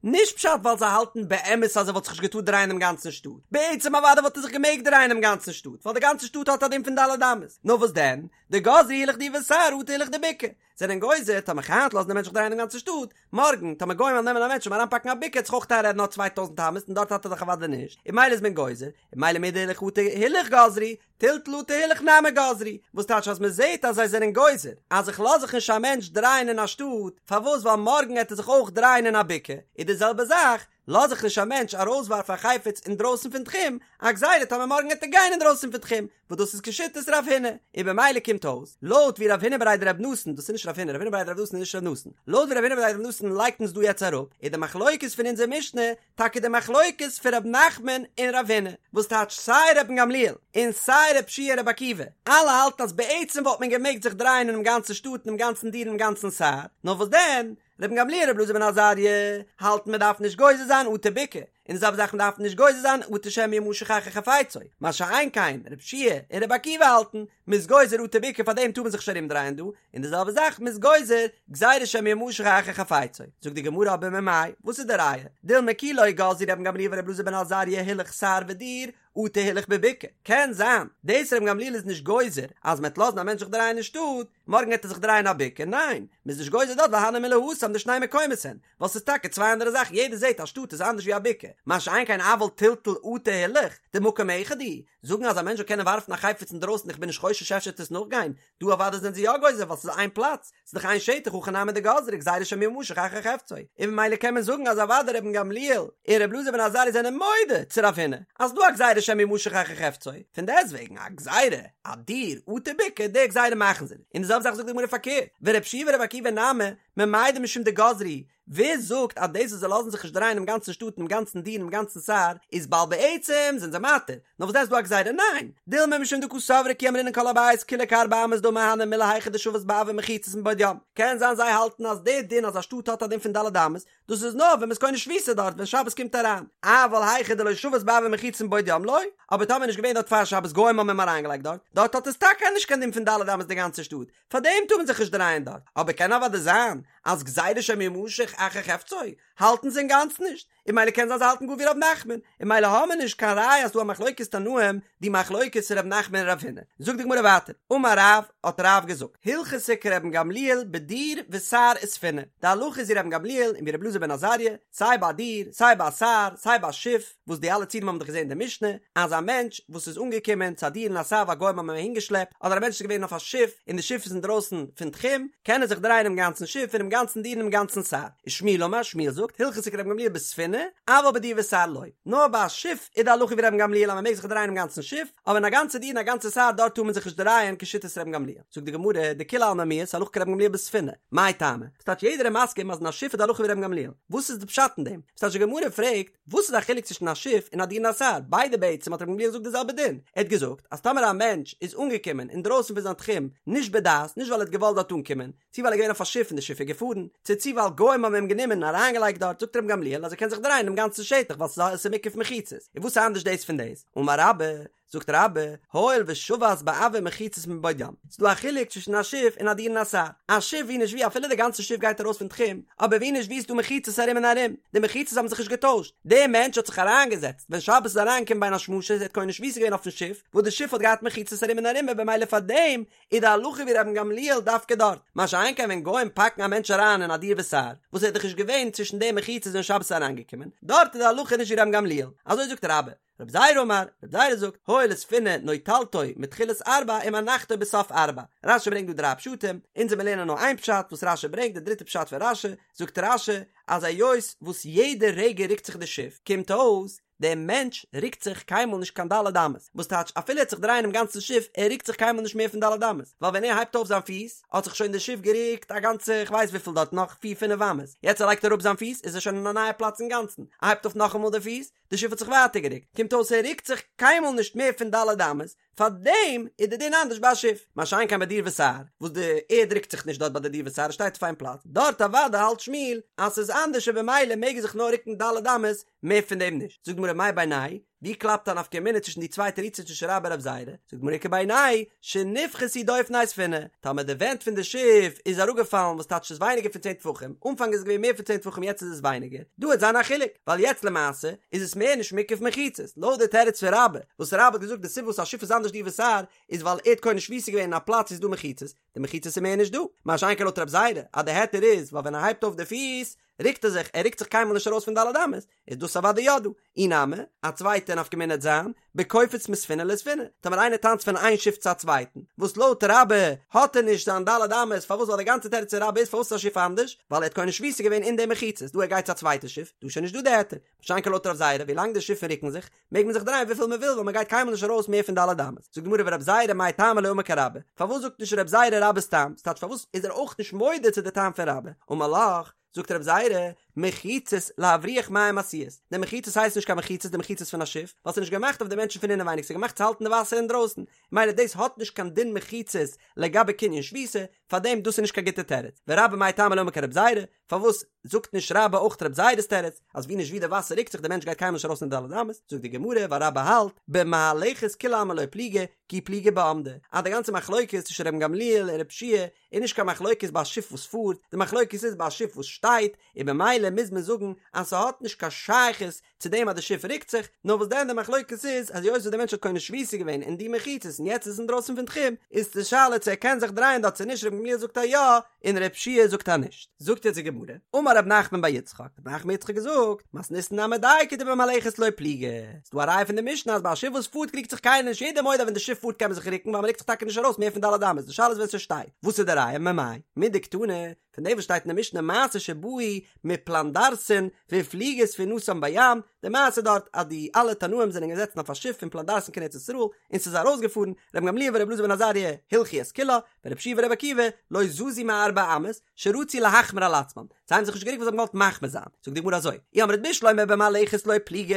נישט פשט ווייל זיי האלטן באמת אז ער וואלט זיך נישט געטארט דרייען דעם גאנצן שטאט, בעצם אוודאי וואלט ער זיך געמעגט דרייען דעם גאנצן שטאט ווייל די גאנצע שטאט האט א דין פון ד' אמות, נאר וואס דען, דגזרו הילוך דיר וסהר אטו הילוך דבקעה, זענען גוזר טאמער היינט לאזן די מענטש זיך דרייען דעם גאנצן שטאט, מארגן טאמער גוים וועלן נעמען א מענטש און אריינפאקן א בקעה עט זיך אויך איינרעדן נאר 2000 אמות און דארט האט ער דאך אוודאי נישט, און ממילא איז מען גוזר, און ממילא מדהילוך אטו הילוך גזרו, טלטול אטו הילוך נמי גזרו, וואס טייטש אז מען זעט אז זיי זענען גוזר אז איך לאז זיך נישט א מענטש דרייען אין א שטאט, פארוואס ווייל מארגן עט ער זיך אויך דרייען אין א בקעה, איז די זעלבע זאך. לאז איך נישט א מענטש ארויסווארפן א חפץ אינדרויסן פון תחום, א גזירה טאמער מארגן וועט ער גיין אינדרויסן פון תחום, וואס דאס איז כשיטת רב הונא, און במילא קומט אויס, לויט ווי רב הונא בריה דרב נתן, דאס איז נישט רב הונא, רב הונא בריה דרב נתן איז נישט רב נתן, לויט ווי רב הונא בריה דרב נתן לייגט אונז דא יעצט אראפ, איז די מחלוקת פון אונזער משנה טאקע די מחלוקת פון רב נחמן און רב הונא, וואס טייטש סיי רבן גמליאל און סיי רב שיע און רבי עקיבא, אלע האלטן אז בעצם וואלט מען געמעגט זיך דרייען אינעם גאנצן שטאט אינעם גאנצן דיר אינעם גאנצן סהר, נאר וואס דען, רבן גמליאל רבי אלעזר בן עזריה האלטן מען דארף נישט גוזר זיין אטו בקעה, און די זעלבע זאך מען דארף נישט גוזר זיין אטו שמא ימשך אחר חפצו, מה שאין כן רב שיע און רבי עקיבא האלטן מען איז גוזר אטו בקעה פאר דעם טאר מען זיך נישט ארום דרייען דא, און די זעלבע זאך מען איז גוזר גזירה שמא ימשך אחר חפצו, זאגט די גמרא אבער ממאי, וואס איז די ראיה, דילמא כי לא גזרו רבן גמליאל ורבי אלעזר בן עזריה הילוך סהר ודיר, אטו הילוך בבקעה, קען זיין דאס רבן גמליאל איז נישט גוזר אז מען וועט לאזן א מענטש זיך דרייען אין שטאט, מארגן וועט ער זיך דרייען א בקעה, ניין, מען איז נישט גוזר דארט ווייל הני מילי התם דשני מקומות הן, ווייל ס'איז טאקע צוויי אנדערע זאכן, יעדער זעט אז שטאט איז אנדערש ווי א בקעה, מה שאין כן אבל טלטול אטו הילוך, דמקום אחד הוא, זאגן אז א מענטש זאל קענען ווארפן א חפץ אינדרויסן איך בין נישט חושש אפשר וועט עס נאכגיין, דא אוודאי זענען זיי יא גוזר ווייל ס'איז איין פלאץ, ס'איז דאך איין שטח הכא נמי דגזרי גזירה שמא ימשך אחר חפצו, און ממילא קען מען זאגן אז אוודאי רבן גמליאל און רבי אלעזר בן עזריה זענען מודה צו רב הונא אז ס'דא א גזירה שמא ימשך אחר חפצו, פון דעסטוועגן א גזירה אדיר אטו בקעה די גזירה מאכן זיי נישט, און די זעלבע זאך זאגט די גמרא פארקערט, ורבי יהושע ורבי עקיבא נמי ממאי דמשום דגזרו, ווער זאגט אז דאס וואס זיי לאזן זיך נישט דרייען אינעם גאנצן שטאט אינעם גאנצן דיר אינעם גאנצן סהר איז ווייל בעצם זענען זיי מתיר, נאר וואס דען איז דא א גזירה? ניין! דילמא משום דקא סברי כי אמרינן כל הבית כולו כארבע אמות דמי הני מילי היכא דשבת באויר מחיצות מבעוד יום. קען זיין זיי האלטן אז די דין אז א שטאט האט א דין פון ד' אמות, דאס איז נאר ווען מ'איז קונה שביתה דארט ווען שבת קומט אריין, אבל היכא דלא שבת באויר מחיצות מבעוד יום לא, אבער טאמער נישט געווען דארט פאר שבת גוים האבן אים אריינגעלייגט דארט, דארט האט עס טאקע נישט קיין דין פון ד' אמות די גאנצע שטאט, פארדעם טאר מען זיך נישט דרייען דארט, אבער קען אוודאי זיין אז גזירה שמא ימשך אחר חפצו האלטן זיי אינגאנצן נישט, און ממילא קען זיין זיי האלטן גאר ווי ר' נחמן, און ממילא האמיר נישט קיין ראיה אז ס'דא א מחלוקת תנאים, די מחלוקת פון ר' נחמן און רב הונא. זאגט די גמרא ווייטער, אמר רב, האט רב געזאגט, הלכתא כרבן גמליאל בדיר וסהר וספינה, די הלכה איז ווי רבן גמליאל און ווי רבי אלעזר בן עזריה, סיי ביי א דיר, סיי ביי א סהר, סיי ביי א שיף, וואס די אלע ציורים האבן דאך געזען אין די משנה, אז א מענטש וואס איז אנגעקומען צו א דיר און א סהר ווייל גוים האבן אים אהינגעשלעפט, אדער א מענטש איז געווען אויף א שיף און די שיף איז אינדרויסן פון תחום, קען ער זיך דרייען אינעם גאנצן שיף אינעם גאנצן דיר אינעם גאנצן סהר. ושמואל אמר, שמואל זאגט, הלכתא כרבן גמליאל בספינה, אבל בדיר וסהר לא. נאר ביי א שיף איז די הלכה ווי רבן גמליאל אז מען מעג זיך דרייען אינעם גאנצן שיף, אבער אין א גאנצע דיר און א גאנצע סהר דארט טאר מען זיך נישט דרייען כשיטת רבן גמליאל. זאגט די גמרא, דכולי עלמא מיהת הלכה כרבן גמליאל בספינה, מאי טעמא? ס'טייטש יעדער איז מסכים אז אין א שיף איז די הלכה ווי רבן גמליאל. וואס איז די פשט אין דעם? ס'טייטש די גמרא פרעגט, וואס איז א חילוק צווישן א שיף און א דיר און א סהר? ביידע בעצם האט רבן גמליאל געזאגט די זעלבע דין. ער האט געזאגט אז טאמער א מענטש איז אנגעקומען אינדרויסן פון זיין תחום נישט בדעת, נישט ווייל ער האט געוואלט דארט אנקומען, צו ווייל ער איז געווען אויף א שיף און די שיף איז געפארן, צו צו ווייל גוים האבן אים גענומען און אריינגעלייגט דארט, זאגט רבן גמליאל אז ער קען זיך דרייען דעם גאנצן שטח ווייל ס'איז מוקף מחיצות. און וואס איז אנדערש דאס פון דאס? אמר רבה, זאגט רבה, הואיל ושבת באויר מחיצות מבעוד יום, ס'איז דא א חילוק צווישן א שיף און א דיר און א סהר, א שיף ווי נישט ווי אפילו די גאנצע שיף גייט ארויס פון תחום, אבער ווי נישט ווי איז דא מחיצות ארום און ארום, די מחיצות האבן זיך נישט געטוישט, דער מענטש האט זיך אריינגעזעצט ווען שבת איז אריינגעקומען בין השמשות ער האט קונה שביתה געווען אויפן שיף, וואס די שיף האט געהאט מחיצות ארום און ארום און במילא פארדעם איז די הלכה ווי רבן גמליאל דווקא דארט, מה שאין כן ווען גוים פאקן א מענטש אריין אין א דיר וסהר, וואס ער איז דאך נישט געווען צווישן די מחיצות ווען שבת איז אריינגעקומען, דארט איז די הלכה נישט ווי רבן גמליאל, אזוי זאגט רבה. רב זירא אמר, רב זירא זאגט, הואיל וספינה נוטלתו מתחילת ארבע ומנחתו בסוף ארבע. רשי ברענגט דא דריי פשטים, אונז וועלן לערנען נאר איין פשט וואס רשי ברענגט, די דריטע פשט פון רשי, זאגט רשי, אז היות וואס יעדע רגע רוקט זיך די שיף, קומט אויס, דער מענטש רוקט זיך קיינמאל נישט קיין ד' אמות, וואס טייטש אפילו ער וועט זיך דרייען דעם גאנצן שיף, ער רוקט זיך קיינמאל נישט מער פון ד' אמות, ווייל ווען ער הייבט אויף זיין פיס, האט זיך שוין די שיף גערוקט א גאנצע כ'ווייס וויפיל דארט נאך פיר פינף אמות, יעצט ער לייגט אראפ זיין פיס איז ער שוין אין א נייע פלאץ אינגאנצן, ער הייבט אויף נאכאמאל די פיס, די שיף האט זיך ווייטער גערוקט, קומט אויס ער רוקט זיך קיינמאל נישט מער פון ד' אמות, פארדעם איז די דין אנדערש ביי א שיף, מה שאין כן ביי דיר וסהר, וואס די ערד רוקט זיך נישט דארט ביי די דיר וסהר, עס שטייט אויף איין פלאץ, דארט אוודאי האלט שמואל אז ס'איז אנדערש און במילא מעג ער זיך נאר רוקן ד' אמות, מער פון דעם נישט. זאגט די גמרא מאי בינייהו ווי קלאפט א נפקא מינה צווישן די צוויי תירוצים צווישן רבה און רב זירא? זאגט די גמרא איכא בינייהו שנפחתו דופני ספינה, טאמער די ווענט פון די שיף איז אראפגעפאלן וואס טייטש ס'איז ווייניגער פון צען טפחים, אנפאנג איז עס געווען מער פון צען טפחים יעצט איז עס ווייניגער, דא וועט זיין א חילוק, ווייל יעצט למעשה איז עס מער נישט מוקף מחיצות, לויט די תירוץ פון רבה, וואס רבה האט געזאגט די סיבה וואס א שיף איז אנדערש דיר וסהר איז ווייל ער האט קונה שביתה געווען אין א פלאץ וואו ס'איז דא מחיצות, די מחיצות איז מער נישט דא, מה שאין כן לויט רב זירא אז די היתר איז ווייל ווען ער הייבט אויף די פיס. ריקט ער זיך, ער ריקט זיך קיינמאל נישט ארויס פון ד' אמות, איז דאס אוודאי יא דא. אי נמי, א צווייטע נפקא מינה וועט זיין, בקופץ מספינה לספינה, טאמער איינער טאנצט פון איין שיף צו א צווייטן, וואס לויט רבה האט ער נישט זיין ד' אמות, פארוואס ווייל די גאנצע תירוץ פון רבה איז פארוואס איז א שיף אנדערש, ווייל ער האט קונה שביתה געווען אין די מחיצות, דא ער גייט צו א צווייטע שיף, דא איז שוין נישט דא די היתר, מה שאין כן לויט רב זירא, ווילאנג די שיפן ריקן זיך, מעג מען זיך דרייען וויפיל מען וויל ווייל מען גייט קיינמאל נישט ארויס מער פון ד' אמות. זאגט די גמרא ורב זירא מאי טעמא לא אמר כרבה, פארוואס זאגט נישט רב זירא רבה'ס טעם, ס'טייטש פארוואס איז ער אויך נישט מודה צו די טעם פון רבה, אמר לך, זאגט רב זירא, מחיצות להבריח מים עשויות, די מחיצות הייסט נישט קיין מחיצות די מחיצות פון א שיף, ווייל ס'איז נישט געמאכט אויף די מענטשן פון אינעווייניג ס'איז געמאכט צו האלטן די וואסער אינדרויסן, מילא דאס האט נישט קיין דין מחיצות לגבי קנין שביתה, פארדעם דאס איז נישט קיין גוטע תירוץ, ורבה מאי טעמא לא אמר כרב זירא, פארוואס זאגט נישט רבה אויך רב זירא'ס תירוץ, אז ווי נישט ווי די וואסער ריקט זיך די מענטש גייט קיינמאל נישט ארויס פון די ד' אמות, זאגט די גמרא ווייל רבה האלט במהלכת כולי עלמא לא פליגי כי פליגי בעמדה, אז די גאנצע מחלוקת צווישן רבן גמליאל און רב שיע איז נישט קיין מחלוקת ביי א שיף וואס פארט, די מחלוקת איז ביי א שיף וואס שטייט, און במילא מוז מען זאגן אז ס'האט נישט קיין שייכות צו דעם אז די שיף רוקט זיך, נאר וואס דען די מחלוקת איז אז היות וואס די מענטש האט קונה שביתה געווען אין די מחיצות און יעצט איז עס אינדרויסן פון תחום, איז די שאלה צו ער קען זיך דרייען דארט צו נישט, רבן גמליאל זאגט אז יא, און רב שיע זאגט אז נישט. זאגט יעצט די גמרא, אמר רב נחמן בר יצחק, רב נחמן בר יצחק האט געזאגט, מתניתין נמי דייקא דבמהלכת לא פליגי, ס'דא א ראיה פון די משנה אז ביי א שיף וואס פארט קריגט זיך קיינער נישט, יעדער מודה אז ווען די שיף פארט קען מען זיך רוקן ווייל מ'רוקט זיך טאקע נישט ארויס מער פון ד' אמות, די שאלה איז ווען ס'שטייט, וואס איז די ראיה? ממאי? מדקתני, פון דעם וואס שטייט אין די משנה מעשה שבאו מפלנדרסין והפליגה ספינתם בים, די מעשה דארט אז די אלע תנאים זענען געזעצן אויף א שיף פון פלנדרסין קיין ארץ ישראל און ס'איז ארויסגעפארן, רבן גמליאל ורבי אלעזר בן עזריה הלכו את כולה, ורבי יהושע ורבי עקיבא לא זזו מארבע אמות, שרצו להחמיר על עצמן, זיי האבן זיך נישט גערוקט ווייל זיי האבן געוואלט מחמיר זיין, זאגט די גמרא אזוי, אי אמרת בשלמא במהלכת לא פליגי,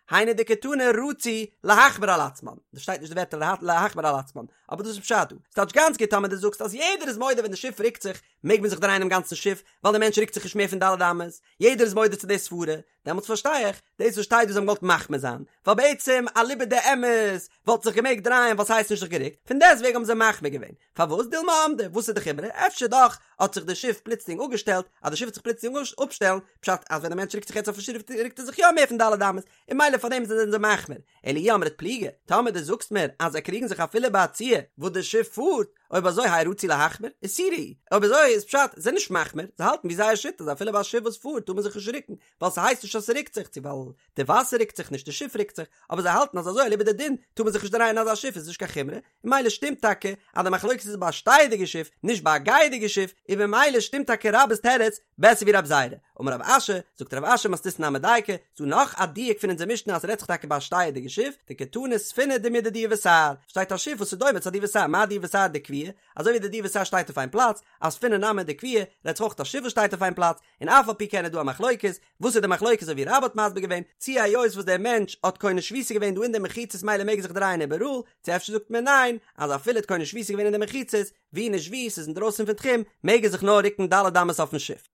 היינו דקתני רצו להחמיר על עצמן, דא שטייט נישט די ווערטער להחמיר על עצמן, אבער דאס איז פשט דא, ס'טייטש גאנץ גוט טאמער דו זאגסט אז יעדער איז מודה ווען די שיף רוקט זיך מעג מען זיך דרייען דעם גאנצן שיף, ווייל דער מענטש רוקט זיך נישט מער פון ד' אמות, יעדער איז מודה צו די סברה, דעמאלטס פארשטיי איך דאס וואס שטייט דא זיי האבן געוואלט מחמיר זיין, ווייל בעצם אליבא דאמת וואלט זיך געמעגט דרייען ווייל ס'הייסט נישט זיך גערוקט, פון דעסטוועגן האבן זיי מחמיר געווען, פארוואס דילמא עמדה, וואס איז די חומרא, אפשר דאך האט זיך די שיף פלוצלינג אפגעשטעלט, אז די שיף וועט זיך פלוצלינג אפשטעלן, פשט אז ווען די מענטש רוקט זיך יעצט אויפן שיף רוקט ער זיך יא מער פון ד' אמות, און מילא פארדעם זענען זיי מחמיר, אלא אי אמרת פליגי, טאמער דו זאגסט מיר אז זיי קריגן זיך אפילו ביי א ציור וואס די שיף פארט, אויב אזוי האי רצו להחמיר, איסורא הוא, אויב אזוי איז פשט, זיי זענען נישט מחמיר, זיי האלטן ווי זייער שיטה אז אפילו ביי א שיף וואס פארט טאר מען זיך נישט רוקן, ווייל ס'הייסט נישט אז ס'רוקט זיך, צו ווייל די וואסער רוקט זיך נישט די שיף רוקט זיך, אבער זיי האלטן אז אזוי אליבא דדין טאר מען זיך נישט דרייען אין אזא שיף איז נישט קיין חומרא, און מילא שטימט טאקע אז די מחלוקת איז ביי א שטייעדיגע שיף נישט ביי א גייעדיגע שיף, און במילא שטימט טאקע רבה'ס תירוץ בעסער ווי רב זירא. אמר רב אשי, זאגט רב אשי מתניתין נמי דייקא, ס'דא נאך א דיוק פון אונזער משנה אז ס'רעדט זיך טאקע ביי א שטייעדיגע שיף, דקתני ספינה דומיא דדיר וסהר, שטייט א שיף וואס איז דומה צו א דיר וסהר, מה דיר וסהר דקביעי, אזוי ווי די דיר וסהר שטייט אויף איין פלאץ, אף ספינה נמי דקביעא, רעדט זיך אויך א שיף וואס שטייט אויף איין פלאץ, און אף על פי כן איז דא א מחלוקת, וואס איז די מחלוקת אזוי ווי רבה האט מסביר געווען, צי היות וואס דער מענטש האט קונה שביתה געווען דא אין די מחיצות מילא מעג ער זיך דרייען איבעראל, צו אפשר זאגט מען ניין, אז אפילו האט קונה שביתה געווען אין די מחיצות, ווי נישט ווי, ס'איז אינדרויסן פון תחום, מעג ער זיך נאר רוקן ד' אמות אויפן שיף.